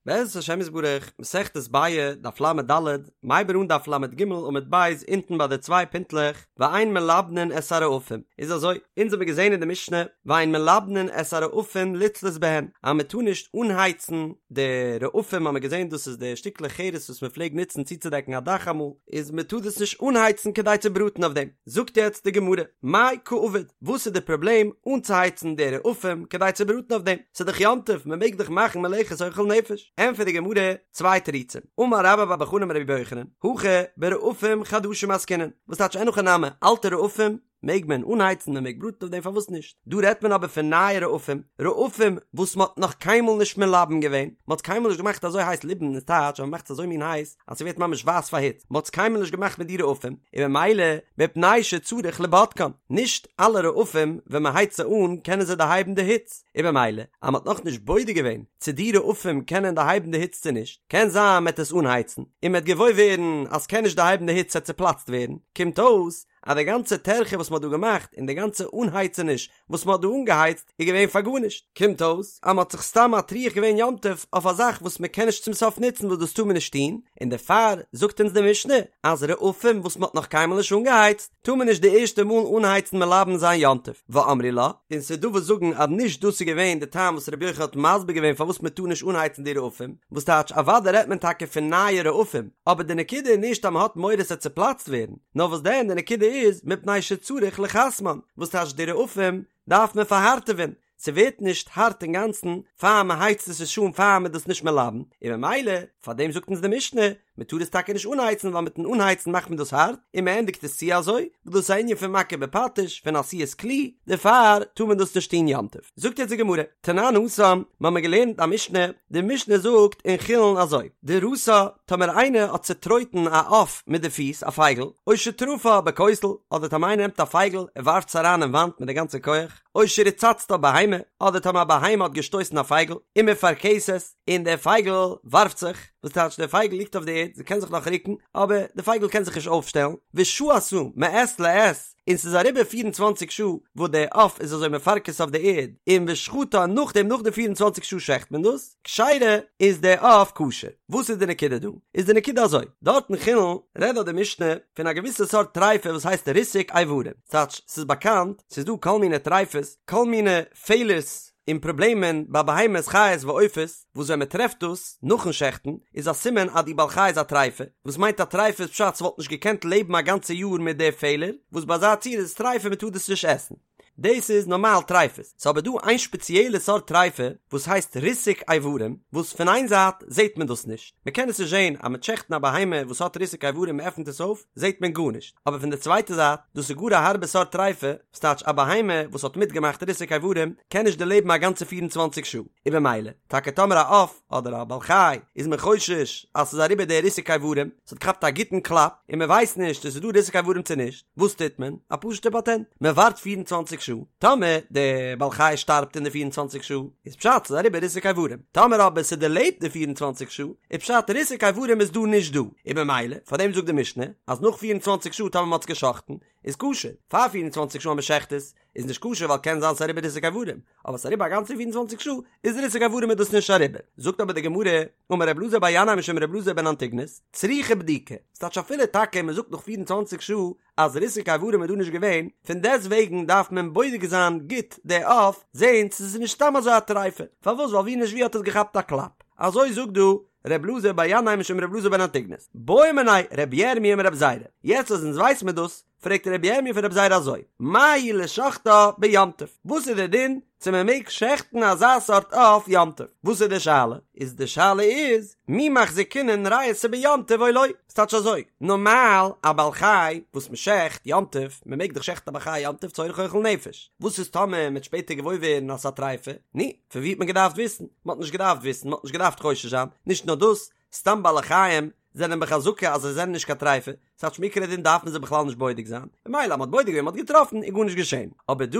בעזרת השם יתברך, מסכת ביעא, דף לד, מ'הייבט אן דף לג עמוד ב' אונטן ביי די צוויי פינטלעך, ואין מלבנין את הרעפים, איז אזוי, אונז האבן געזען אין די משנה, ואין מלבנין את הרעפים לצלות בהן, אז מען טאר נישט אנהייצן די רעפים, האבן מיר געזען דאס איז די שטיקלעך חרס וואס מען פלעגט נוצן צוצודעקן א דאך אמאל, איז מען טאר דאס נישט אנהייצן כדי צו בראטן אויף דעם. זאגט יעצט די גמרא, מאי קא עביד, וואס איז די פראבלעם אנצוהייצן די רעפים כדי צו בראטן אויף דעם? ס'איז דאך יום טוב, מען מעג דאך מאכן מלאכת אוכל נפש. ענטפערט די גמרא, צוויי תירוצים, אמר רבה בר בר חנה אמר רבי יוחנן, הכא ברעפים חדשים עסקינן, וואס טייטש אין הכי נמי, אלטע רעפים מעג מען אנהייצן, מען מעג בראטן אויף דעם פארוואס נישט? דא רעדט מען אבער פון נייע רעפים, רעפים וואס מען האט נאך קיינמאל נישט מלבן געווען, מען האט קיינמאל נישט געמאכט אזוי הייס, ליבון איז טייטש אז מען מאכט עס אזוי מין הייס אז ס'ווערט ממש ווייס פאר היץ, מען האט עס קיינמאל נישט געמאכט מיט די רעפים, און ממילא מפני שצריך לבדקן, נישט אלע רעפים ווען מען הייצט זיי אן קענען זיי דערהייבן די היץ, און ממילא אז מען האט נאכנישט בודק געווען צו די רעפים קענען דערהייבן די היץ צו נישט, קען זיין מען וועט עס אנהייצן און מען וועט געוואויר ווערן אז ס'קען נישט דערהייבן די היץ ס'וועט צופלאצט ווערן, קומט אויס אז די גאנצע טרחה וואס מען האט דא געמאכט און די גאנצע אנהייצעניש וואס מען האט דא אנגעהייצט איז געווען פאר גארנישט, קומט אויס אז מען האט זיך סתם מטריח געווען יום טוב אויף א זאך וואס מען קען נישט צום סוף נוצן וואס דאס טאר מען נישט טון, און דערפאר זאגט אונז די משנה אז רעפים וואס מען האט נאך קיינמאל נישט אנגעהייצט טאר מען נישט די ערשטע מאל אנהייצן מלבן זיין יום טוב, ואמרי לה, און ס'איז דא וואס זאגן אז נישט דאס איז געווען די טעם וואס רבי יוחנן האט מסביר געווען פארוואס מען טאר נישט אנהייצן די רעפים, וואס טייטש אוודאי רעדט מען טאקע פון נייע רעפים, אבער די נקודה איז נישט אז מען האט מורא ס'וועט צופלאצט ווערן, נאר וואס דען די נקודה איז מפני שצריך לחסמן, וואס טייטש די רעפים דארף מען פארהארטעווען, ס'ווערט נישט הארט אינגאנצן פאר מען הייצט עס נישט אן פאר מען דאס נישט מלבן, און ממילא פאר דעם זאגט אונז די משנה מען טאר עס טאקע נישט אנהייצן ווייל מיטן אנהייצן מאכט מען דאס הארט און מען ענדיגט עס צו אזוי, וואס דאס איז א ענין פון מכה בפטיש פון עשיית כלי, דערפאר טאר מען דאס נישט טון יום טוב. זאגט יעצט די גמרא, תנן התם, מ'האמיר געלערנט א משנה, די משנה זאגט אין חולין אזוי, דרסה, טאמער איינער האט צוטרויטן א עוף מיט די פיס, א פייגל, או שטרפה בכותל, אדער טאמער איינער נעמט א פייגל און ווארפט עס אריין אין וואנט מיט די גאנצע כח, או שריצצתה בהמה, אדער טאמער א בהמה האט געשטויסן א פייגל, ומפרכסת, און דער פייגל ווארפט זיך, וואס טייטש דער פייגל ליגט אויף די ערד, זי קען זיך נאך רוקן, אבער די פייגל קען זיך נישט אויפשטעלן, ושהתה מעת לעת, און ס'איז אריבער פיר און צוואנציג שעה וואס דער עוף איז אזוי מפרכס אויף די ערד, און ושחטה נאכדעם נאך די 24 שעה שעכט מען דאס, כשרה, איז דער עוף כשר. וואס איז די נקודה דא? איז די נקודה אזוי, דארט אין חולין רעדט דארט די משנה פון א געוויסע סארט טריפה וואס הייסט ריסוק איברים, ס'טייטש ס'איז באקאנט ס'איז דא כל מיני טריפות, כל מיני פעלערס און פראבלעמען ביי בהמות חיות ועופות, וואס ווען מ'טרעפט דאס נאכן שעכטן איז א סימן אז די בעל חי איז א טריפה, וואס מיינט א טריפה איז פשט ס'וואלט נישט געקענט לעבן א גאנצע יאר מיט די פעלער, וואס ביי אזא ציור איז עס טריפה מ'טאר דאס נישט עסן. דאס איז נארמאל טריפות, ס'איז אבער דא איין שפעציעלע סארט טריפה וואס הייסט ריסוק איברים, וואס פון איין זייט זעט מען דאס נישט, מ'קען עס נישט זען, אז מ'וועט שעכטן א בהמה וואס האט ריסוק איברים מ'עפנט עס אויף זעט מען גארנישט, אבער פון די צווייטע זייט דאס איז גאר א הארבע סארט טריפה, וואס טייטש א בהמה וואס האט מיטגעמאכט ריסוק איברים קען נישט דערלעבן א גאנצע 24 שעה, און במילא טאקע טאמער א עוף אדער א בעל חי איז מען חושש אז ס'איז אריבער די ריסוק איברים, ס'האט געכאפט א גוטן קלאפ און מ'ווייסט נישט צו ס'איז דא ריסוק איברים צו נישט, וואס טוט מען? א פשוט'ע פאטענט, מען ווארט 24 שעה, טאמער די בעל חי שטארבט אין די 24 שעה, איז פשט ס'איז אריבער ריסוק איברים, טאמער אבער ס'דערלעבט די 24 שעה, איז פשט ריסוק איברים איז דא נישט דא, און במילא, פארדעם זאגט די משנה, אז נאך 24 שעה טאמער מ'האט עס גע'שחט'ן, איז כשר, פאר 24 שעה אז מ'שחט עס, איז נישט כשר ווייל קען זיין ס'איז אריבער ריסוק איברים, אבער ס'איז אריבער א גאנצע 24 שעה, איז ריסוק איברים איז דאס נישט אריבער. זאגט אבער די גמרא, אמר רב אלעזר בר ינאי משום רב אלעזר בן אנטיגנוס, צריכה בדיקה, ס'טייטש אפילו טאקע מ'זאגט נאך 24 שעה אז ריסוק איברים איז דא נישט געווען, פון דעסט וועגן דארף מען בודק זיין גוט די עוף, זען צו ס'איז נישט סתם אזוי א טריפה, פארוואס ווייל ווי נישט ווי האט עס געכאפט א קלאפ. אזוי זאגט דא ר' אלעזר בר ינאי משום ר' אלעזר בן אנטיגנוס. בעא מיניה ר' ירמי' מר' זירא. יעצט אז אונז ווייס מיר דאס, פרעגט רבי ירמי' פון רבי זירא אזוי, מהו לשוחטה ביום טוב, וואס איז דער דין צו מען מעג שעכטן אזא סארט עוף יום טוב, וואס איז די שאלה? איז די שאלה איז, מי מחזקינן ריעותא ביום טוב או לא, ס'טייטש אזוי, נארמאל א בעל חי וואס מען שעכט יום טוב, מען מעג דאך שעכטן א בעל חי יום טוב צורך אוכל נפש, וואס איז טאמער מען וועט שפעטער געוואויר ווערן אז ס'איז א טריפה, נו, פון ווי האט מען געדארפט וויסן? מען האט נישט געדארפט וויסן, מען האט נישט געדארפט חושש זיין, נישט נאר דאס, סתם בעלי חיים זענען בחזקה אז זיי זענען נישט קיין טריפה, ס'טייטש מעיקר הדין דארף מען זיי בכלל נישט בודק זיין, ממילא אז מ'האט בודק געווען מ'האט געטראפן איז גארנישט געשען, אבער דא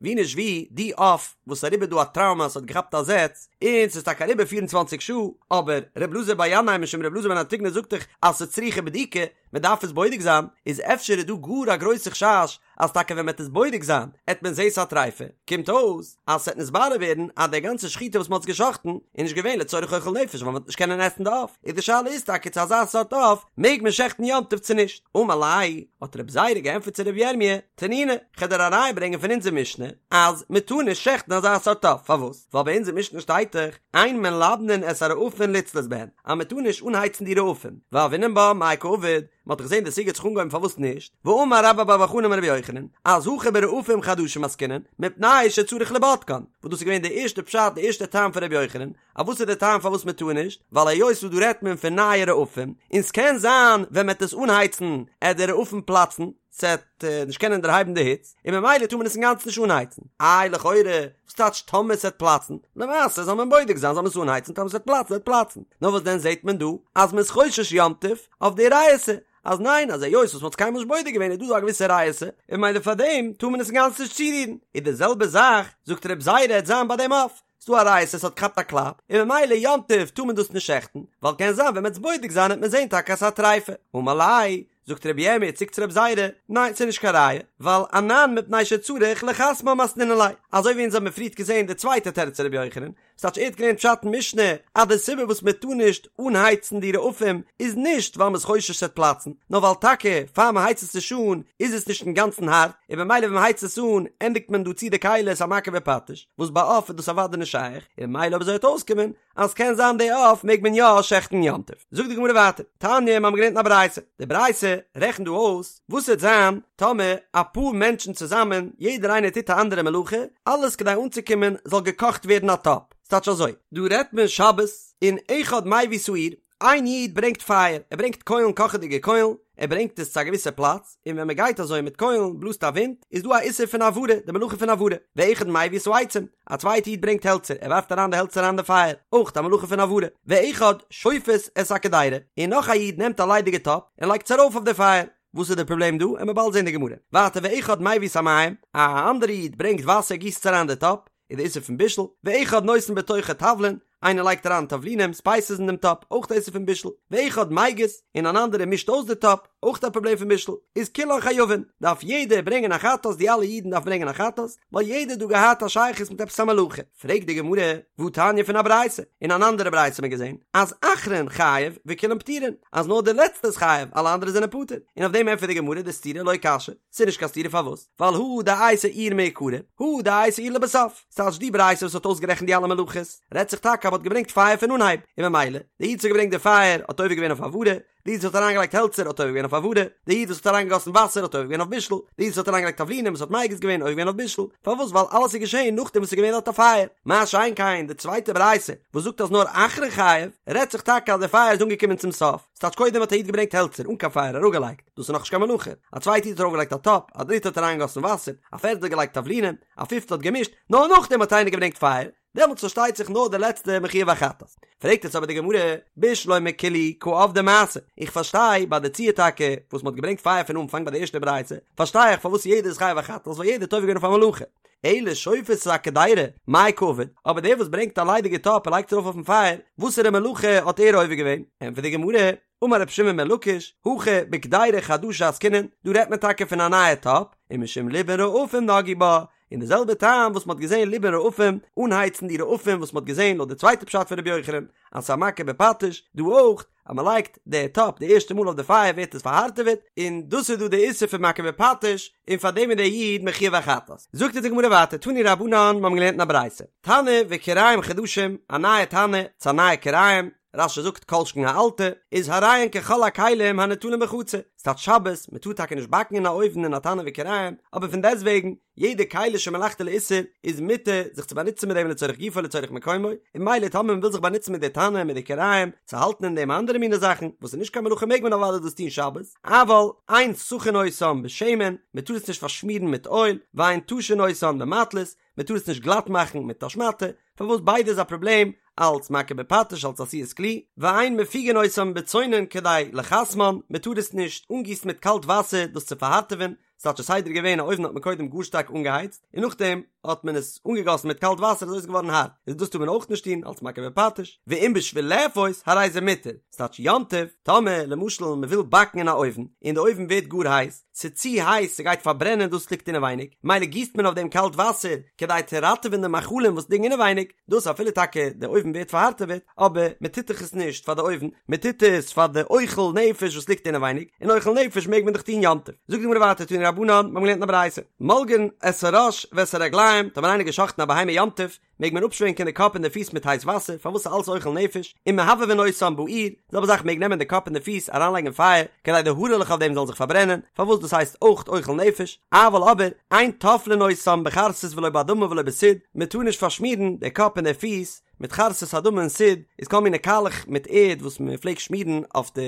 ווי נישט ווי די עוף וואס איז אריבער דא א טראומא ס'האט געכאפט א זעץ און ס'איז טאקע אריבער 24 שעה, אבער ר' אלעזר בר ינאי משום ר' אלעזר בן אנטיגנוס זאגט דאך אז ס'איז צריכה בדיקה, מען דארף עס בודק זיין, איז אפשר איז דא גאר א גרויסע חשש אז טאקע ווען מען וועט עס בודק זיין עט מען זעהן ס'א טריפה, קומט אויס אז ס'עט נתברר ווערן אז די גאנצע שחיטה וואס מ'האט עס געשחט'ן איז נישט געווען לצורך אוכל נפש ווייל מ'וועט נישט קענען עסן די עוף, איז די שאלה איז טאקע צו אזא סארט עוף מעג מען שעכטן יום טוב צו נישט, אמר ליה, האט רב זירא געענטפערט צו רב ירמי', תנינא, כ'על דיר א ראיה ברענגען פון אונזער משנה אז מ'טאר נישט שעכטן אזא סארט עוף, פארוואס? ווייל ביי אונזער משנה שטייט דאך אין מלבנין את הרעפים לצלות בהן אז מ'טאר נישט אנהייצן די רעפים, והוינן בה מאי קעביד, מען האט דאך געזען די סוגיא האט זיך אנגעהויבן פארוואס נישט, ואמר רבה בר בר חנה אמר רבי יוחנן, אז הכא ברעפים חדשים עסקינן, מפני שצריך לבודקן, וואס דאס איז געווען די ערשטע פשט די ערשטע טעם פון רבי יוחנן, אז וואס איז די טעם פארוואס מען טאר נישט, ווייל היות וואס דא רעדט מען פון נייע רעפים, און ס'קען זיין ווען מען וועט עס אנהייצן עט די רעפים פלאצן, ס'עט נישט קענען דערהייבן די היץ, און ממילא טאר מען עס אינגאנצן נישט אנהייצן. איי לכאורה, וואס טייטש טאמער ס'עט פלאצן? למעשה זאל מען בודק זיין זאל מען עס אנהייצן טאמער ס'עט פלאצן עט פלאצן. נאר וואס דען זעט מען דא אז מ'איז חושש יום טוב אויף די ריעותא, אז ניין אז היות וואס מ'האט עס קיינמאל נישט בודק געווען איז דא דא א געוויסע ריעותא, און ממילא פארדעם טאר מען עס אינגאנצן נישט צורירן. איז די זעלבע זאך זאגט רב זירא עט זיין ביי דעם עוף, ס'דא א ריעותא ס'האט געכאפט א קלאפ, און ממילא יום טוב טאר מען דאס נישט שעכטן, ווייל קען זיין ווען מ'עט עס בודק זיין עט מען זען טאקע אז ס'איז א טריפה. אמר ליה, זאגט רבי ירמי' צוריק צו רב זירא, ניין ס'איז נישט קיין ראיה, ווייל אנן מפני שצריך לחסמן מתנינן ליה, אזוי ווי אונז האבן פריערט געזען די צווייטע תירוץ פון רבי יוחנן, ס'טייטש ער האט געלערנט פשט אין משנה אז די סיבה וואס מען טאר נישט אנהייצן די רעפים איז נישט ווייל מ'איז חושש ס'וועט פלאצן, נאר ווייל טאקע פאר מ'הייצט עס נישט אן איז עס נישט אינגאנצן הארט, און במילא ווען מ'הייצט עס אן ענדיגט מען דא צו די כלי ס'איז א מכה בפטיש, וואס ביי עוף איז דאס אוודאי נישט שייך, און ממילא אויב אזוי וועט אויסקומען אז קען זיין די עוף מעג מען יא שעכטן יום טוב. זאגט די גמרא ווייטער, תניא מיר האבן געלערנט אין א ברייתא, די ברייתא רעכנט דא אויס וואס וועט זיין טאמער אפאר מענטשן צוזאמען יעדער איינער טוט א אנדערע מלאכה, אלעס כדי אנצוקומען זאל געקאכט ווערן א טאפ, ס'טייטש אזוי, דא רעדט מען שבת און אחד מביא את האור, איין איד ברענגט פייער, ער ברענגט קוילן קאכעדיגע קוילן, ער ברענגט עס צו א געוויסע פלאץ, און ווען מען גייט אזוי מיט קוילן בלאזט א ווינט, איז דא א איסור פון הבערה, די מלאכה פון הבערה, ואחד מביא את העצים, א צווייטע איד ברענגט העלצער, ער ווארפט אריין די העלצער אריין די פייער, אויך א מלאכה פון הבערה, ואחד שופת את הקדירה, און נאך א איד נעמט א ליידיגע טאפ און לייגט עס ארויף אויף די פייער, וואס איז די פראבלעם דא? עמיר באלד זען די גמרא. ווייטער ואחד מביא את המים, א אנדערע איד ברענגט וואסער גיסט עס אריין די טאפ, איז די איסור פון בישול, ואחד נותן בתוכה תבלין, איינער לייגט אריין תבלינים, ספייסעס אין דעם טאפ, אויך די איסור פון בישול, ואחד מגיס, און אן אנדערער מישט אויס די טאפ, אויך א פראבלעם פון בישול, איז כולן חייבין, דארף יעדער ברענגען א חטאת, די אלע אידן דארפן ברענגען א חטאת, ווייל יעדער האט דא געהאט א שייכות מיט עפעס א מלאכה. פרעגט די גמרא, והתניא פון א ברייתא, אין אן אנדערע ברייתא האט מען געזען, אז אחרון חייב וכולן פטורין, אז נאר דער לעצטער איז חייב, אלע אנדערע זענען פטור, און אויף דעם ענטפערט די גמרא די סתירה לא קשיא, ס'איז נישט קיין סתירה פארוואס? ווייל הא דאייתי אור מעיקרא, הא דאייתי אור לבסוף. ס'טייטש די ברייתא וואס האט אויסגערעכנט די אלע מלאכות, רעדט זיך טאקע אז מ'האט געברענגט פייער פון אנהייב, און ממילא, די איד וואס האט געברענגט די פייער האט עובר געווען אויף הבערה, די איד וואס האט אריינגעלייגט העלצער האט עובר געווען אויף הבערה, די איד וואס האט אריינגעגאסן וואסער האט עובר געווען אויף בישול, די איד וואס האט אריינגעלייגט תבלינים וואס האט מגיס געווען עובר געווען אויף בישול, פארוואס? ווייל אלעס איז געשען נאכדעם וואס ס'איז געווען דארט א פייער. מה שאין כן די צווייטע ברייתא וואס זאגט אז נאר אחרון חייב, רעדט זיך טאקע אז די פייער איז אנגעקומען צום סוף, ס'טייטש קודם האט א איד געברענגט העלצער אן קיין פייער אראפגעלייגט, דאס איז נאכנישט קיין מלאכה, א צווייטע איד האט ארויפגעלייגט א טאפ, א דריטע האט אריינגעגאסן וואסער, א פערטע האט געלייגט תבלינים, א פיפטע האט געמישט, נאר נאכדעם האט איינער געברענגט פייער, דעמאלטס פארשטייט זיך נאר דער לעצטער מחויב א חטאת. פרעגט יעצט אבער די גמרא, בשלמא כולהו קא עבדי מעשה, איך פארשטיי ביי די ציור טאקע וואס מ'האט געברענגט פייער פון אנפאנג ביי די ערשטע ברייתא, פארשטיי איך פארוואס יעדער איז חייב א חטאת ווייל יעדער האט עובר געווען אויף א מלאכה, אלא שופת את הקדירה, מאי קעביד, אבער דער וואס ברענגט א ליידיגע טאפ און לייגט עס ארויף אויפן פייער, וואסערע מלאכה האט ער עובר געווען? ענטפערט די גמרא, אמר רבי שמעון בן לקיש, הכא בקדירה חדשה עסקינן, דא רעדט מען טאקע פון א נייע טאפ, ומשום ליבון רעפים נגעו בה, און די זעלבע טעם וואס מ'האט געזען ליבון רעפים, אנהייצן די רעפים וואס מ'האט געזען לויט די צווייטע פשט פון רבי יוחנן, אז ס'איז א מכה בפטיש, דא אויך, אז מ'לייגט די טאפ די ערשטע מאל אויף די פייער ווערט עס פארהארטעוועט, און דאס איז דא די איסור פון מכה בפטיש, און פאר דעם איז דער איד מחויב א חטאת. זאגט אונז די גמרא ווייטער, תנו רבנן, מיר האבן געלערנט אין א ברייתא, תנור וכירים חדשים, א נייע תנור, צו א נייע כירים, רש"י זאגט כל שכן א אלטע, איז הרי הן ככל הכלים הניטלין בחצר, ס'טייטש שבת, מ'טאר טאקע נישט באקן אין א אויוון אין א תנור וכירים, אבער פון דעסטוועגן, יעדע כלי שמלאכתו לאיסור איז מותר זיך צו באנוצן מיט דעם לצורך גופו לצורך מקומו, און ממילא טאמער מ'וויל זיך באנוצן מיט די תנור מיט די כירים צו האלטן אין דעם אנדערע מיני זאכן וואס איז נישט קיין מלאכה מעג מען אוודאי דאס טון שבת, אבל אין סכין אותן בשמן, מ'טאר עס נישט פארשמירן מיט אויל, ואין טשין אותן במטלית, מען טאר עס נישט גלאט מאכן מיט א שמאטע, פארוואס ביידע איז א פראבלעם, אלץ מכה בפטיש אלץ עשיית כלי, ואין מפיגין אותן בצונן כדי לחסמן, מען טאר עס נישט אנגיסן מיט קאלט וואסער דאס צו פארהארטעווען, ס'טייטש די סדר איז געווען א אויוון האט מען קודם גאר שטארק אנגעהייצט, און נאכדעם האט מען עס אנגעגאסן מיט קאלט וואסער אזוי איז געווארן הארט, איז דאס טאר מען אויך נישט טון אלס מכה בפטיש, ואם בשביל לאפות הרי זה מותר, ס'טייטש יום טוב, טאמער למשל מ'וויל באקן אין א אויוון, און די אויוון ווערט גאר הייס, ס'איז צו הייס ס'גייט פארברענען דאס ליגט אינעווייניג, מילא גיסט מען אויף דעם קאלט וואסער כדי צו ראטעווען די מאכלים וואס ליגן אינעווייניג, דאס אפילו טאקע די אויוון ווערט פארהארטעוועט, אבער מען טוט דאך עס נישט פאר די אויוון, מען טוט עס פאר די אוכל נפש וואס ליגט אינעווייניג, און אוכל נפש מעג מען דאך טון יום טוב. זאגט די גמרא ווייטער תנו רבנן, מיר האבן געלערנט אין א ברייתא, מולגין את הראש ואת הרגליים, טאמער איינער האט געשאכטן א בהמה יום טוב, מעג מען אפשווענקען די קאפ און די פיס מיט הייס וואסער, פארוואס איז אלס אוכל נפש, ומהבהבין אותן באור, די זעלבע זאך מעג נעמען די קאפ און די פיס אריינלייגן אין פייער, כדי די הארעלעך אויף דעם זאלן זיך פארברענען, פארוואס דאס הייסט אויך אוכל נפש, אבל אבער, אין טופלין אותן בחרסית ולא באדמה ולא בסיד, מען טאר נישט פארשמירן די קאפ און די פיס מיט חרסית אדמה און סיד, איז כל מיני קאלעך מיט ערד וואס מען פלעגט שמירן אויף די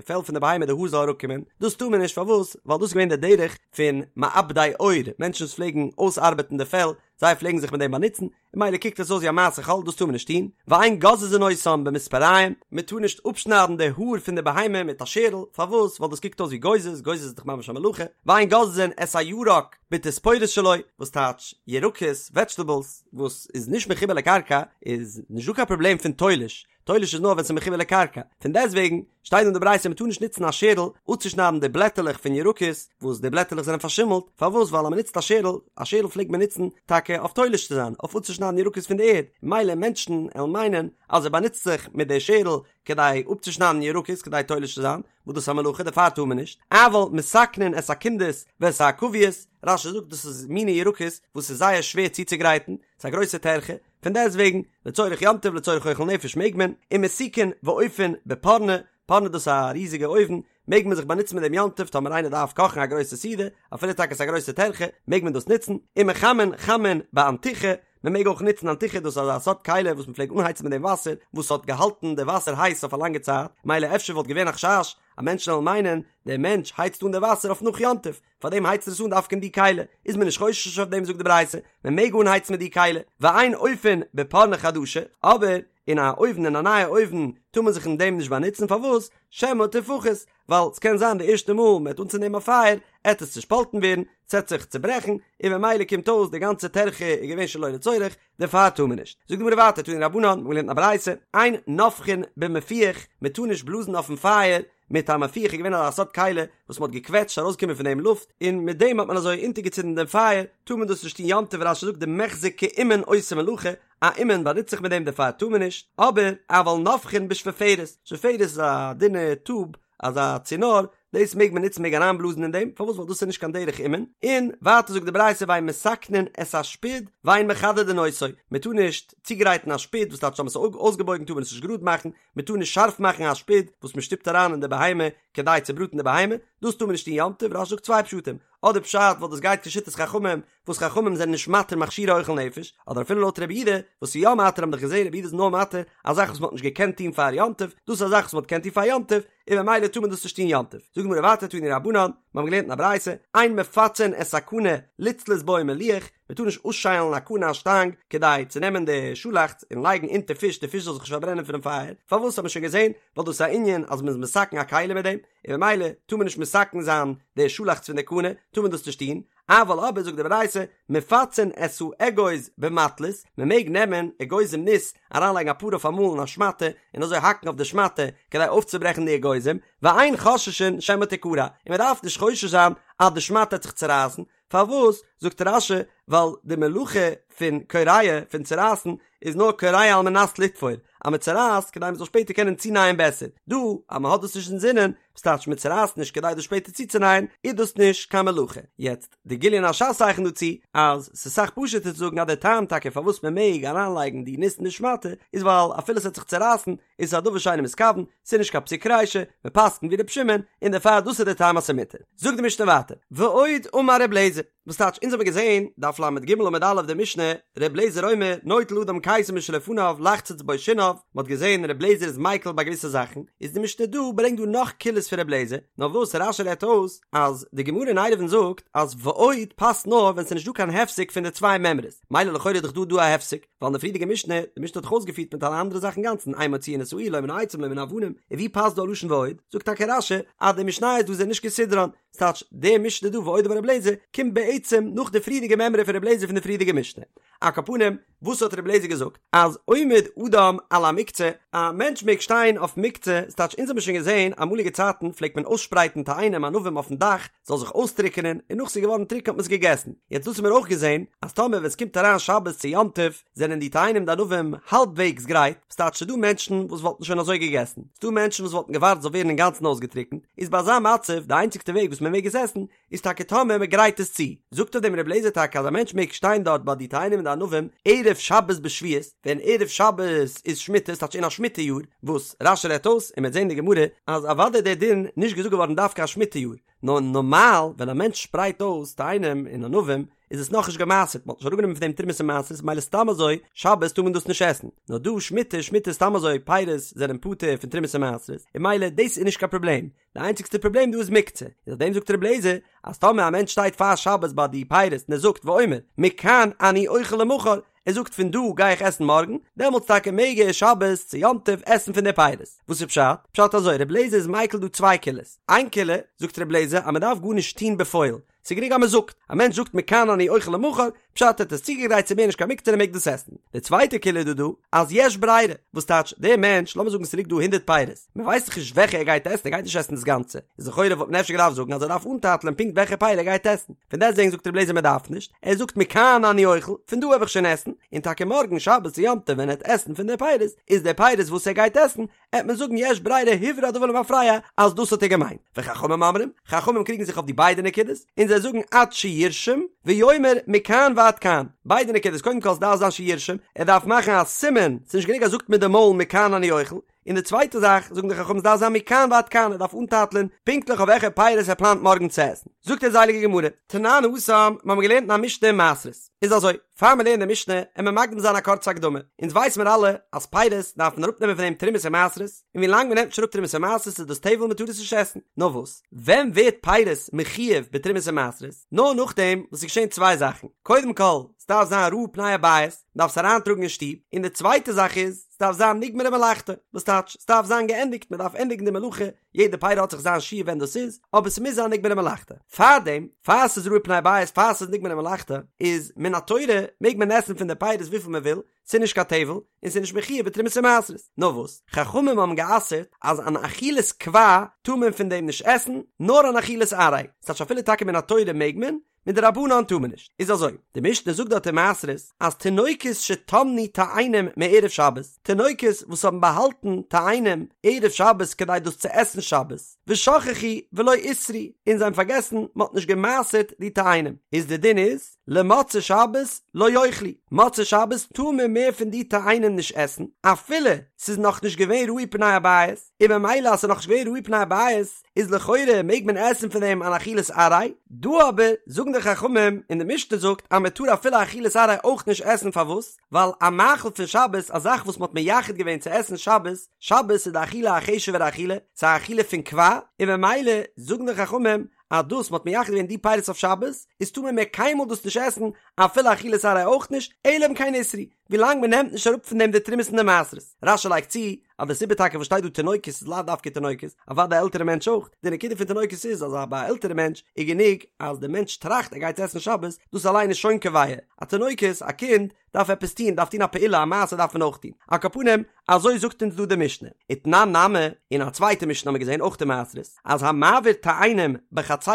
פעל פון די בהמה די האר זאל אראפקומען, דאס טאר מען נישט פארוואס? ווייל דאס איז געווען די דרך פון מעבדי עור, מענטשן וואס פלעגן אויסארבעטן די פעל, זיי פלעגן זיך מיט דעם באנוצן, און מילא קוקט עס אויס ווי א מעשה חול, דאס טאר מען נישט טון, ואין גוזזין אותן במספריים, מען טאר נישט אפשניידן די האר פון די בהמה מיט א שערל, פארוואס? ווייל דאס קוקט אויס ווי גוזז, גוזז איז דאך ממש א מלאכה, ואין גוזזין את הירק בתספורת שלו, וואס טייטש ירקות, וועדזשטעבלס, וואס איז נישט מחובר לקרקע, איז נישט דא קיין פראבלעם פון תולש, תולש איז נאר ווען ס'איז מחובר לקרקע, פון דעסטוועגן שטייט אין די ברייתא מ'טאר נישט נוצן א שערל אפצושניידן די בלעטעלעך פון ירקות וואס די בלעטעלעך זענען פארשימלט, פארוואס ווייל אז מ'נוצט א שערל, א שערל פלעגט מען נוצן טאקע אויף תולש צו זיין, אויף אפצושניידן ירקות פון די ערד, מילא מענטשן עלן מיינען אז ער באנוצט זיך מיט די שערל כדי אפצושניידן ירקות כדי תולש צו זיין, וואס דאס איז א מלאכה דערפאר טאר מען נישט, אבל מתקנין את הקונדס ואת העכביות, רש"י זאגט דאס איז מיני ירקות וואס איז זייער שווער צוצוגרייטן, ס'איז א גרויסע טרחה, פון דעסט וועגן, לצורך יום טוב לצורך אוכל נפש מעג מען, ומסיקין ואופין בפורני, פורני דאס איז א ריזיגע אויוון, מעג מען זיך באנוצן מיט דעם יום טוב טאמער איינער דארף קאכן א גרויסע סעודה, אפילו טאקע עס איז א גרויסע טרחה, מעג מען דאס נוצן, ומחמין חמין באנטיכי, מען מעג אויך נוצן אנטיכי דאס איז אזא סארט כלי וואס מען פלעגט אנהייצן מיט דעם וואסער, וואס האט געהאלטן די וואסער הייס אויף א לאנגע צייט, מילא אפשר וואלט געווען א חשש אז מענטשן וועלן מיינען, דער מענטש הייצט אן די וואסער אויף נאך יום טוב, פארדעם הייצט ער עס אן דווקא אין די כלי, איז מען נישט חושש אויף דעם זאגט די ברייתא, מען מעג אנהייצן מיט די כלי, ואין אופין בפורני חדשה, אבער אין א אויוון אין א נייע אויוון טאר מען זיך אין דעם נישט באנוצן, פארוואס? שמא תפחת, ווייל ס'קען זיין די ערשטע מאל מען וועט אנצינדן א פייער עט עס צושפאלטן ווערן, ס'עט זיך צוברעכן, און ממילא קומט אויס די גאנצע טרחה איז געווען שלא לצורך, דערפאר טאר מען נישט. זאגט די גמרא ווייטער, תנו רבנן, מ'האט געלערנט אין א ברייתא, אין נופחין במפוח, מען טאר נישט בלאזן אויפן פייער מיט א מפוח איז געווען אזא סארט כלי וואס מען האט געקוועטשט ארויסגעקומען פון דעם לופט, און מיט דעם האט מען אזוי אונטערגעצינדן דעם פייער, טאר מען דאס נישט טון יום טוב, רש"י זאגט דמיחזי כאומן עושה מלאכה, א אומן באנוצט זיך מיט דעם דערפאר טאר מען נישט, אבער אבל נופחין בשפופרת, שפופרת איז א דינע טוב, אזא צינור, דאס מעג מען נוצן מעג אריינבלאזן אין דעם, פארוואס ווייל דאס איז נישט קיין דרך אומן, און ווייטער זאגט די ברייתא ואין מתקנין את השפוד ואין מחדדין אותו, מען טאר נישט צוגרייטן א שפוד וואס טייטש אז מען האט עס אויסגעבויגן טאר מען עס נישט גראד מאכן, מען טאר נישט שארף מאכן א שפוד וואס מען שטופט אריין אין די בהמה כדי צו בראטן די בהמה, דאס טאר מען נישט טון יום טוב, רש"י זאגט צוויי פשטים, אדער פשט ווייל דאס גייט כשיטת חכמים, וואס חכמים זענען נישט מתיר מכשירי אוכל נפש, אדער אפילו לויט רבי יהודה וואס איז יא מתיר האבן דאך געזען רבי יהודה איז נאר מתיר א זאך וואס מען האט נישט געקענט טון פאר יום טוב, דאס איז א זאך וואס מען האט געקענט טון פאר יום טוב, און ממילא טאר מען דאס נישט טון יום טוב. זאגט די גמרא ווייטער תנו רבנן, מיר האבן געלערנט אין א ברייתא, אין מפצין את הקנה לצלות בו מליח, מען טאר נישט אויסשיילן א קנה א שטאנג כדי צו נעמען די שאלאכץ און לייגן אונטער פיש די פיש זאל זיך נישט פארברענען פונעם פייער, פארוואס האט מען שוין געזען, ווייל דאס איז א ענין אז מען איז מתקן א כלי מיט דעם, און ממילא טאר מען נישט מתקן זיין די שאלאכץ פון די קנה, טאר מען דאס נישט טון, אבל אבער זאגט די ברייתא, מפצין את האגוז במטלית, מען מעג נעמען אגוזים ניס, אריינלייגן אפאר אויף אמאל אין א שמאטע, און אזוי האקן אויף די שמאטע, כדי אויפצוברעכן די אגוזים, ואין חוששין שמא תקרע, און מען דארף נישט חושש זיין אז די שמאטע וועט זיך צורייסן, פארוואס, זאגט רש"י, ווייל די מלאכה פון קורע, פון צורייסן, איז נאר קורע על מנת לתפור, אז מען צורייסט כדי מען זאל שפעטער קענען צונייען בעסער, דא אז מען האט דאס נישט אינזינען, וואס טייטש מען צורייסט נישט כדי דאס שפעטער צוצונייען, איז דאס נישט קיין מלאכה. יעצט, די גליון הש"ס צייכנט דא צו, אז ס'איז אסאך פשוט'ער צו זאגן אז דער טעם טאקע פארוואס מען מעג אריינלייגן די ניס אין די שמאטע, איז ווייל אפילו ס'וועט זיך צורייסן, איז עס א דבר שאינו מתכוון, ס'איז נישט קיין פסיק רישא, מען פסק'נט ווי ר' שמעון, און דערפאר דאס איז דער טעם אז ס'איז מותר. זאגט די משנה ווייטער, ועוד אמר ר' אליעזר, וואס טייטש אונז האבן געזען, דף ל"ג עמוד א' די משנה, ר' אליעזר אומר, נוטל אדם קיסם משלפניו לחצוץ בו שיניו, מען האט געזען ר' אליעזר איז מיקל ביי געוויסע זאכן, איז די משנה דא ברענגט דא נאך קולות פון ר' אליעזר, נאר וואס רש"י רעדט אויס אז די גמרא אין עירובין זאגט אז ועוד פאסט נאר ווען ס'איז נישט דא קיין הפסק פון די צוויי מימרות, מילא לכאורה איז דאך דא דא א הפסק, ווייל אין די פריערדיגע משנה, די משנה האט דאך אויסגעפירט מיט אלע אנדערע זאכן אינגאנצן, אין מוציאין את האור לא מן העצים לא מן האבנים, און ווי פאסט דא א לשון ועוד? זאגט טאקע רש"י אז די משניות דא זענען נישט כסדרן. ס'טייטש, די משנה דא ועוד אמר ר' אליעזר קומט בעצם נאך די פריערדיגע מימרא פון ר' אליעזר פון די פריערדיגע משנה. על כל פנים, וואס האט ר' אליעזר געזאגט? אז עומד אדם על המוקצה, א מענטש מעג שטיין אויף מוקצה, ס'טייטש אונז האבן שוין געזען אמאליגע צייטן פלעגט מען אויסשפרייטן תאנים ענבים אויפן דאך זאל זיך אויסטריקענען און נאך ס'איז געווארן טרוקן האט מען עס געגעסן, יעצט דאס האבן מיר אויך געזען אז טאמער ווען ס'קומט אריין שבת צו יום טוב זענען די תאנים די ענבים האלבוועגס גרייט, ס'טייטש ס'דא מענטשן וואס וואלטן שוין אזוי געגעסן, ס'דא מענטשן וואס וואלטן געווארט ס'זאל ווערן אינגאנצן אויסגעטריקנט, איז ביי אזא מצב די איינציגסטע וועג וואס מ'מעג עס עסן איז טאקע טאמער מען גרייט עס צו, זאגט אויף דעם רבי אליעזר טאקע אז א מענטש מעג שטיין דארט ביי די תאנים און די ענבים ערב שבת בשביעית, ווען ערב שבת איז שמיטה, ס'טייטש אין א שמיטה יאר, וואס רש"י רעדט אויס און מ'וועט זען אין די גמרא אז אוודאי איז דער דין נישט געזאגט געווארן דווקא א שמיטה יאר, נאר נארמאל ווען א מענטש שפרייט אויס תאנים און ענבים איז עס נאכנישט גע'מעשר'ט, מ'האט נישט אראפגענומען פון דעם תרומות און מעשרות, ממילא סתם אזוי שבת טאר מען דאס נישט עסן, נאר דא שמיטה, שמיטה סתם אזוי פירות זענען פטור פון תרומות און מעשרות, און ממילא דאס איז נישט קיין פראבלעם, די איינציגסטע פראבלעם דא איז מוקצה, איז אויף דעם זאגט רבי אליעזר אז טאמער א מענטש שטייט פאר שבת ביי די פירות און ער זאגט ואומר מכאן אני אוכל למחר, ער זאגט פון דא גיי איך עסן מארגן, דעמאלטס טאקע מעג ער שבת צו יום טוב עסן פון די פירות. וואס איז פשט? פשט אזוי, רבי אליעזר איז מיקל דא צוויי קולות, איין קולא זאגט רבי אליעזר אז מען דארף גארנישט טון בפועל, ס'איז גענוג אז מען זאגט, א מענטש זאגט מכאן אני אוכל למחר, פשט ער האט עס צוגעגרייט ס'איז מער נישט קיין מוקצה און ער מעג דאס עסן. די צווייטע קולא איז דא דא, אז יש ברירה, וואס טייטש, דער מענטש, לאמיר זאגן ס'ליגט דא הונדרעט פירות, מען ווייסט דאך נישט וועלכע ער גייט עסן, ער גייט נישט עסן דאס גאנצע, איז לכאורה וואלט מען אפשר געדארפט זאגן אז ער דארף אנטייטלען פונקט וועלכע פרי ער גייט עסן, פון דעסטוועגן זאגט רבי אליעזר מען דארף נישט, ער זאגט מכאן אני אוכל, פון דא וועל איך שוין עסן, און טאקע מארגן שבת צו יום טוב ווען ער וועט עסן פון די פירות, איז די פירות וואס ער גייט עסן, עט מען זאגן יש ברירה הוברר הדבר למפרע אז דאס האט ער געמיינט, וחכמים אומרים, חכמים קריגן זיך אויף די ביידע נקודות, און זיי זאגן עד שירשום, ויאמר מכאן ועד כאן, ביידע נקודות, קודם כל עס דארף זיין שירשום, ער דארף מאכן א סימן, ס'איז נישט גענוג אז ער זאגט מיט די מויל מכאן אני אוכל, און די צווייטע זאך, זאגן די חכמים עס דארף זיין מכאן ועד כאן, ער דארף אנטייטלען פונקטליך אויף וועלכע פירות ער פלאנט מארגן צו עסן. זאגט אונז די הייליגע גמרא, תנן התם, מיר האבן געלערנט אין א משנה אין מעשרות, איז אזוי, פאר מיר לערנען די משנה, עמיר מקדים זיין א קורצע הקדמה. אונז ווייס מיר אלע אז פירות דארף מען אראפנעמען פון דעם תרומות און מעשרות, און ווי לאנג מען נעמט נישט אראפ תרומות און מעשרות איז דאס טבל מען טאר עס נישט עסן. נאר וואס, ווען ווערט פירות מחויב בתרומות און מעשרות? נאר נאכדעם וואס ס'איז געשען צוויי זאכן, קודם כל, ס'דארף זיין ראו פני הבית, מ'דארף עס אריינטראגן אין שטוב, און די צווייטע זאך איז, ס'דארף זיין נגמרה מלאכתו, וואס טייטש, ס'דארף זיין געענדיגט, מ'דארף ענדיגן די מלאכה, יעדע פרי האט זיך זיין שיעור ווען דאס איז, אבער ס'מוז זיין נגמרה מלאכתו. פארדעם, פאר ס'איז ראו פני הבית, פאר ס'איז נגמרה מלאכתו, איז מן התורה מעג מען עסן פון די פירות וויפיל מען וויל, ס'איז נישט קיין טבל, און ס'איז נישט מחויב בתרומות ומעשרות. נאר וואס, חכמים האבן גע'אסר'ט אז אן אכילת קבע טאר מען פון דעם נישט עסן, נאר אן אכילת עראי. ס'טייטש אפילו טאקע מן התורה מעג מען, מדרבנן טאר מען נישט. איז אזוי, די משנה זאגט דארט אין מעשרות אז תינוקות שטמנו תאנים מערב שבת, תינוקות וואס האבן באהאלטן תאנים ערב שבת כדי דאס צו עסן שבת, ושכחו ולא עשרו, און זיי האבן פארגעסן מען האט נישט גע'מעשר'ט די תאנים, איז די דין איז, למוצאי שבת לא יאכלו, מוצאי שבת טאר מען מער פון די תאנים נישט עסן, אפילו ס'איז נאכנישט געווען ראו פני הבית, און ממילא אז ס'איז נאכנישט געווען ראו פני הבית, איז לכאורה מעג מען עסן פון דעם אן אכילת עראי, דא אבער זאגן די חכמים און די משנה זאגט אז מען טאר אפילו אכילת עראי אויך נישט עסן פארוואס? ווייל א מאכל פון שבת א זאך וואס מען האט מייחד געווען צו עסן שבת, שבת איז די אכילה א חשוב'ערע אכילה, ס'איז א אכילה פון קבע, און ממילא זאגן די חכמים אז דאס מען האט מייחד געווען די פירות אויף שבת, איז טאר מען מער קיינמאל דאס נישט עסן אפילו אכילת עראי אויך נישט, אלא אם כן עשרו, ווילאנג מען נעמט נישט אראפ פון דעם די תרומות און די מעשרות. רש"י לייגט צו אז די סיבה טאקע וואס שטייט דא תינוקות איז לאו דווקא תינוקות, אוודאי א עלטערע מענטש אויך, די נקודה פון תינוקות איז אז ביי א עלטערע מענטש איז גענוג אז די מענטש טראכט ער גייט עסן שבת, דאס אליין איז שוין קובע, א תינוקות, א קינד, דארף עפעס טון, דארף טון א פעולה, א מעשה דארף מען אויך טון. על כל פנים, אזוי זאגט אונז דא די משנה. ותנן נמי, אין א צווייטע משנה האבן מיר געזען אויך אין מעשרות, אז המעביר תאנים בחצרו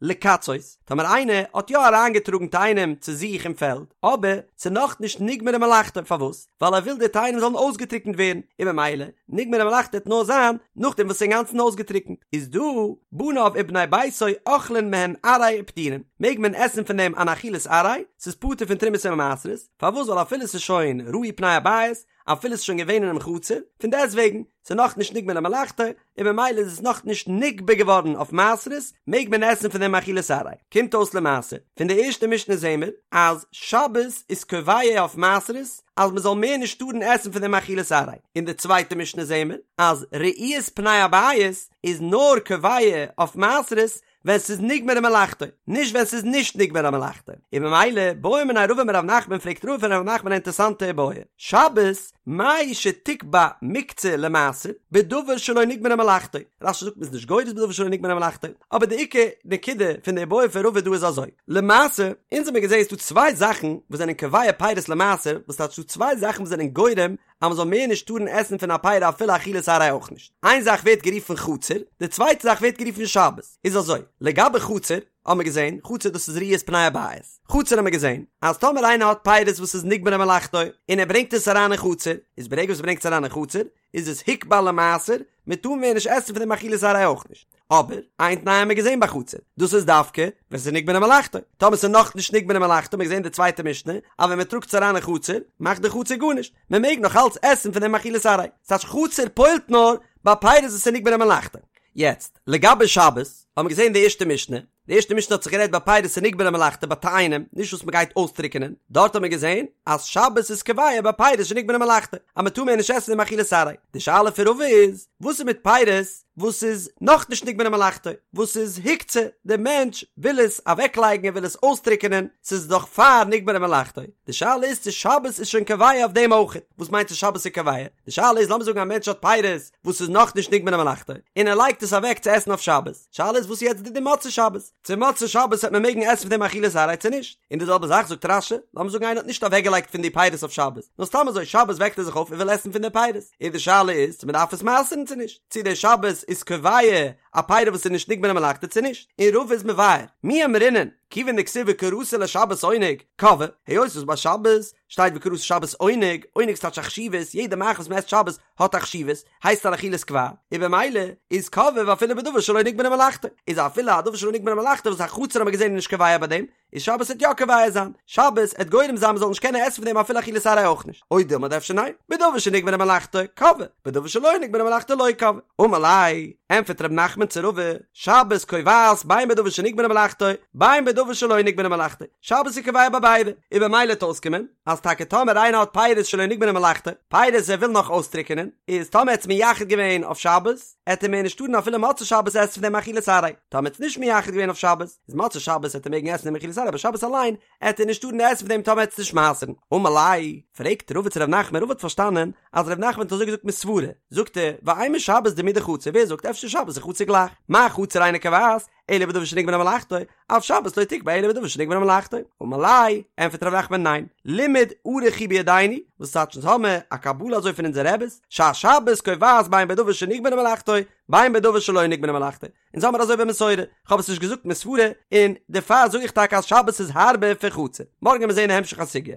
לקצות, טאמער איינער האט יא אריינגעטראגן תאנים צו זיך אין פעלד, אבער ס'איז נאכנישט נגמרה מלאכתו, פארוואס? ווייל ער וויל די תאנים זאלן אויסגעטריקנט ווערן, און ממילא נגמרה מלאכתו וועט נאר זיין נאכדעם וואס ס'איז אינגאנצן אויסגעטריקנט, איז דא בניו ובני ביתו אוכלין מהן עראי ופטורין, מעג מען עסן פון דעם אן אכילת עראי, ס'איז פטור פון תרומות און מעשרות, פארוואס? ווייל אפילו ס'איז שוין ראו פני הבית, אפילו ס'איז שוין געווען אינעם חצר, פון דעסטוועגן, ס'איז נאכנישט נגמרה מלאכתו, און ממילא איז עס נאכנישט נגבה געווארן אויף מעשרות, מעג מען עסן פון דעם אכילת עראי. קומט אויס למעשה, פון די ערשטע משנה זעהן מיר, אז שבת איז קובע אויף מעשרות, אז מען זאל מער נישט טארן עסן פון דעם אכילת עראי. אין די צווייטע משנה זעהן מיר, אז ראיית פני הבית איז נאר קובע אויף מעשרות, ווען ס'איז נגמרה מלאכתו, נישט ווען ס'איז נישט נגמרה מלאכתו, און ממילא בעא מיניה רבא מרב נחמן פרעגט רבא פון רב נחמן א אינטערסאנטע איבעיא, שבת. מהו שתקבע מוקצה למעשר בדבר שלא נגמרה מלאכתו, רש"י זאגט מ'איז נישט גורס בדבר שלא נגמרה מלאכתו, אבער די עיקר נקודה פון די איבעיא פון רבא דא איז אזוי, למעשה, אונז האמיר געזען ס'דא צוויי זאכן וואס זענען קובע פירות למעשר, וואס טייטש ס'דא צוויי זאכן וואס זענען גורם אז מ'זאל מער נישט טארן עסן פון א פרי אפילו אכילת עראי אויך נישט, איין זאך ווערט גערופן חצר, די צווייטע זאך ווערט גערופן שבת, איז אזוי, לגבי חצר, האמיר געזען, חצר דאס איז ראיית פני הבית, חצר האמיר געזען, אז טאמער איינער האט פירות וואס איז נגמרה מלאכתו, און ער ברענגט עס אריין אין חצר, איז ברגע וואס ער ברענגט עס אריין אין חצר, איז עס הוקבע למעשר, מען טאר מער נישט עסן פון דעם אכילת עראי אויך נישט. אבער, איין תנאי האמיר געזען ביי חצר, דאס איז דווקא ווען ס'איז נגמרה מלאכתו. טאמער ס'איז נאכנישט נגמרה מלאכתו, האמיר געזען די צווייטע משנה, אז ווען מען טראגט עס אריין אין חצר, מאכט די חצר גארנישט, מען מעג נאך אלץ עסן פון דעם אכילת עראי. ס'טייטש חצר פועל'ט נאר ביי פירות וואס איז נגמרה מלאכתו. יעצט, לגבי שבת, האמיר געזען די ערשטע משנה, די ערשטע משנה האט זיך גערעדט ביי פירות שנגמרה מלאכתו ביי תאנים, נישט וואס מ'גייט אויסטריקענען, דארט האט מען געזען אז שבת איז קובע ביי פירות שנגמרה מלאכתו, אז מ'טאר מער נישט עסן דעם אכילת עראי. די שאלה פון רבא איז, וואס איז מיט פירות וואס איז נאכנישט נגמרה מלאכתו, וואס איז הוקצה, דער מענטש וויל עס אוועקלייגן ער וויל עס אויסטריקענען, ס'איז דאך פאר נגמרה מלאכתו, די שאלה איז צו שבת איז שוין קובע אויף דעם אויכעט, וואס מיינט צו שבת איז קובע? די שאלה איז לאמיר זאגן א מענטש האט פירות וואס איז נאכנישט נגמרה מלאכתו, און ער לייגט עס אוועק צו עסן אויף שבת, שאלה איז וואס איז יעצט די דין מוצאי שבת? צו מוצאי שבת וועט מען מעגן עסן פון דעם אכילת עראי צו נישט? און די זעלבע זאך זאגט רש"י, לאמיר זאגן איינער האט נישט אוועקגעלייגט פון די פירות אויף שבת, נאר סתם אזוי שבת וועקט ער זיך אויף און וויל עסן פון די פירות, און די שאלה איז צו מען דארף עס מעשר'ן צו נישט, צו די שבת איז קובע א פירות וואס איז נישט נגמרה מלאכתו צו נישט, און רבא איז מבאר, מי אמרינן, כיוון דכתיב וקראת לשבת עונג, קבעה, היות וואס ביי שבת שטייט וקראת לשבת עונג, עונג איז טייטש א חשיבות, יעדע מאכל וואס מען עסט שבת האט א חשיבות, הייסט אן אכילת קבע, און במילא איז קבעה ואפילו בדבר שלא נגמרה מלאכתו, איז אפילו א דבר שלא נגמרה מלאכתו וואס א חצר האט מען געזען איז נישט קובע ביי דעם, איז שבת עט יא קובע זיין, שבת עט גורם זיין מ'זאל נישט קענען עסן פון דעם אפילו אכילת עראי אויך נישט, או דילמא אדער אפשר ניין, בדבר שנגמרה מלאכתו, קבעה, בדבר שלא נגמרה מלאכתו לא קבעה. אמר ליה, ענטפערט ר' נחמן צו רבא, שבת קובעת בין בדבר שנגמרה מלאכתו, בין בדבר שלא נגמרה מלאכתו, שבת איז קובע ביי ביידע, און במילא עט אויסקומען, אז טאקע טאמער איינער האט פירות שלא נגמרה מלאכתו, פירות ער וויל נאך אויסטריקענען, איז טאמער ער האט עס מייחד געווען אויף שבת, עט ער מער נישט טארן אפילו מוצאי שבת עסן פון דעם אכילת עראי, טאמער ער האט עס נישט מייחד געווען אויף שבת, איז מוצאי שבת עט ער מעגן עסן דעם אכילת עראי אבער שבת אליין עט ער נישט טארן עסן פון דעם טאמער ער עט עס נישט מעשר'ן. אמר ליה, פרעגט רבא צו ר' נחמן, רבא האט פארשטאנען אז ר' נחמן האט אזוי געזאגט מסברא, זאגט ער, ואימא שבת דומיא דחצר, ווער זאגט אפשר שבת איז חצר גלייך, מה חצר אינה קובעת, אלא בדבר שנגמרה מלאכתו, אף שבת לא תקבע אלא בדבר שנגמרה מלאכתו. אמר ליה, ענטפערט ר' נחמן ניין, לימוד ערוך הוא בידינו, וואס טייטש אונז האמער א קבלה אזוי פון אונזערע רעבעס, שהשבת קובעת בין בדבר שנגמרה מלאכתו, בין בדבר שלא נגמרה מלאכתו. אונז האמער אזוי במסורה, כ'האב עס נישט געזאגט מסברא, און דערפאר זאג איך טאקע אז שבת איז הארבער פון חצר. מארגן וועמיר זעהן די המשך הסוגיא.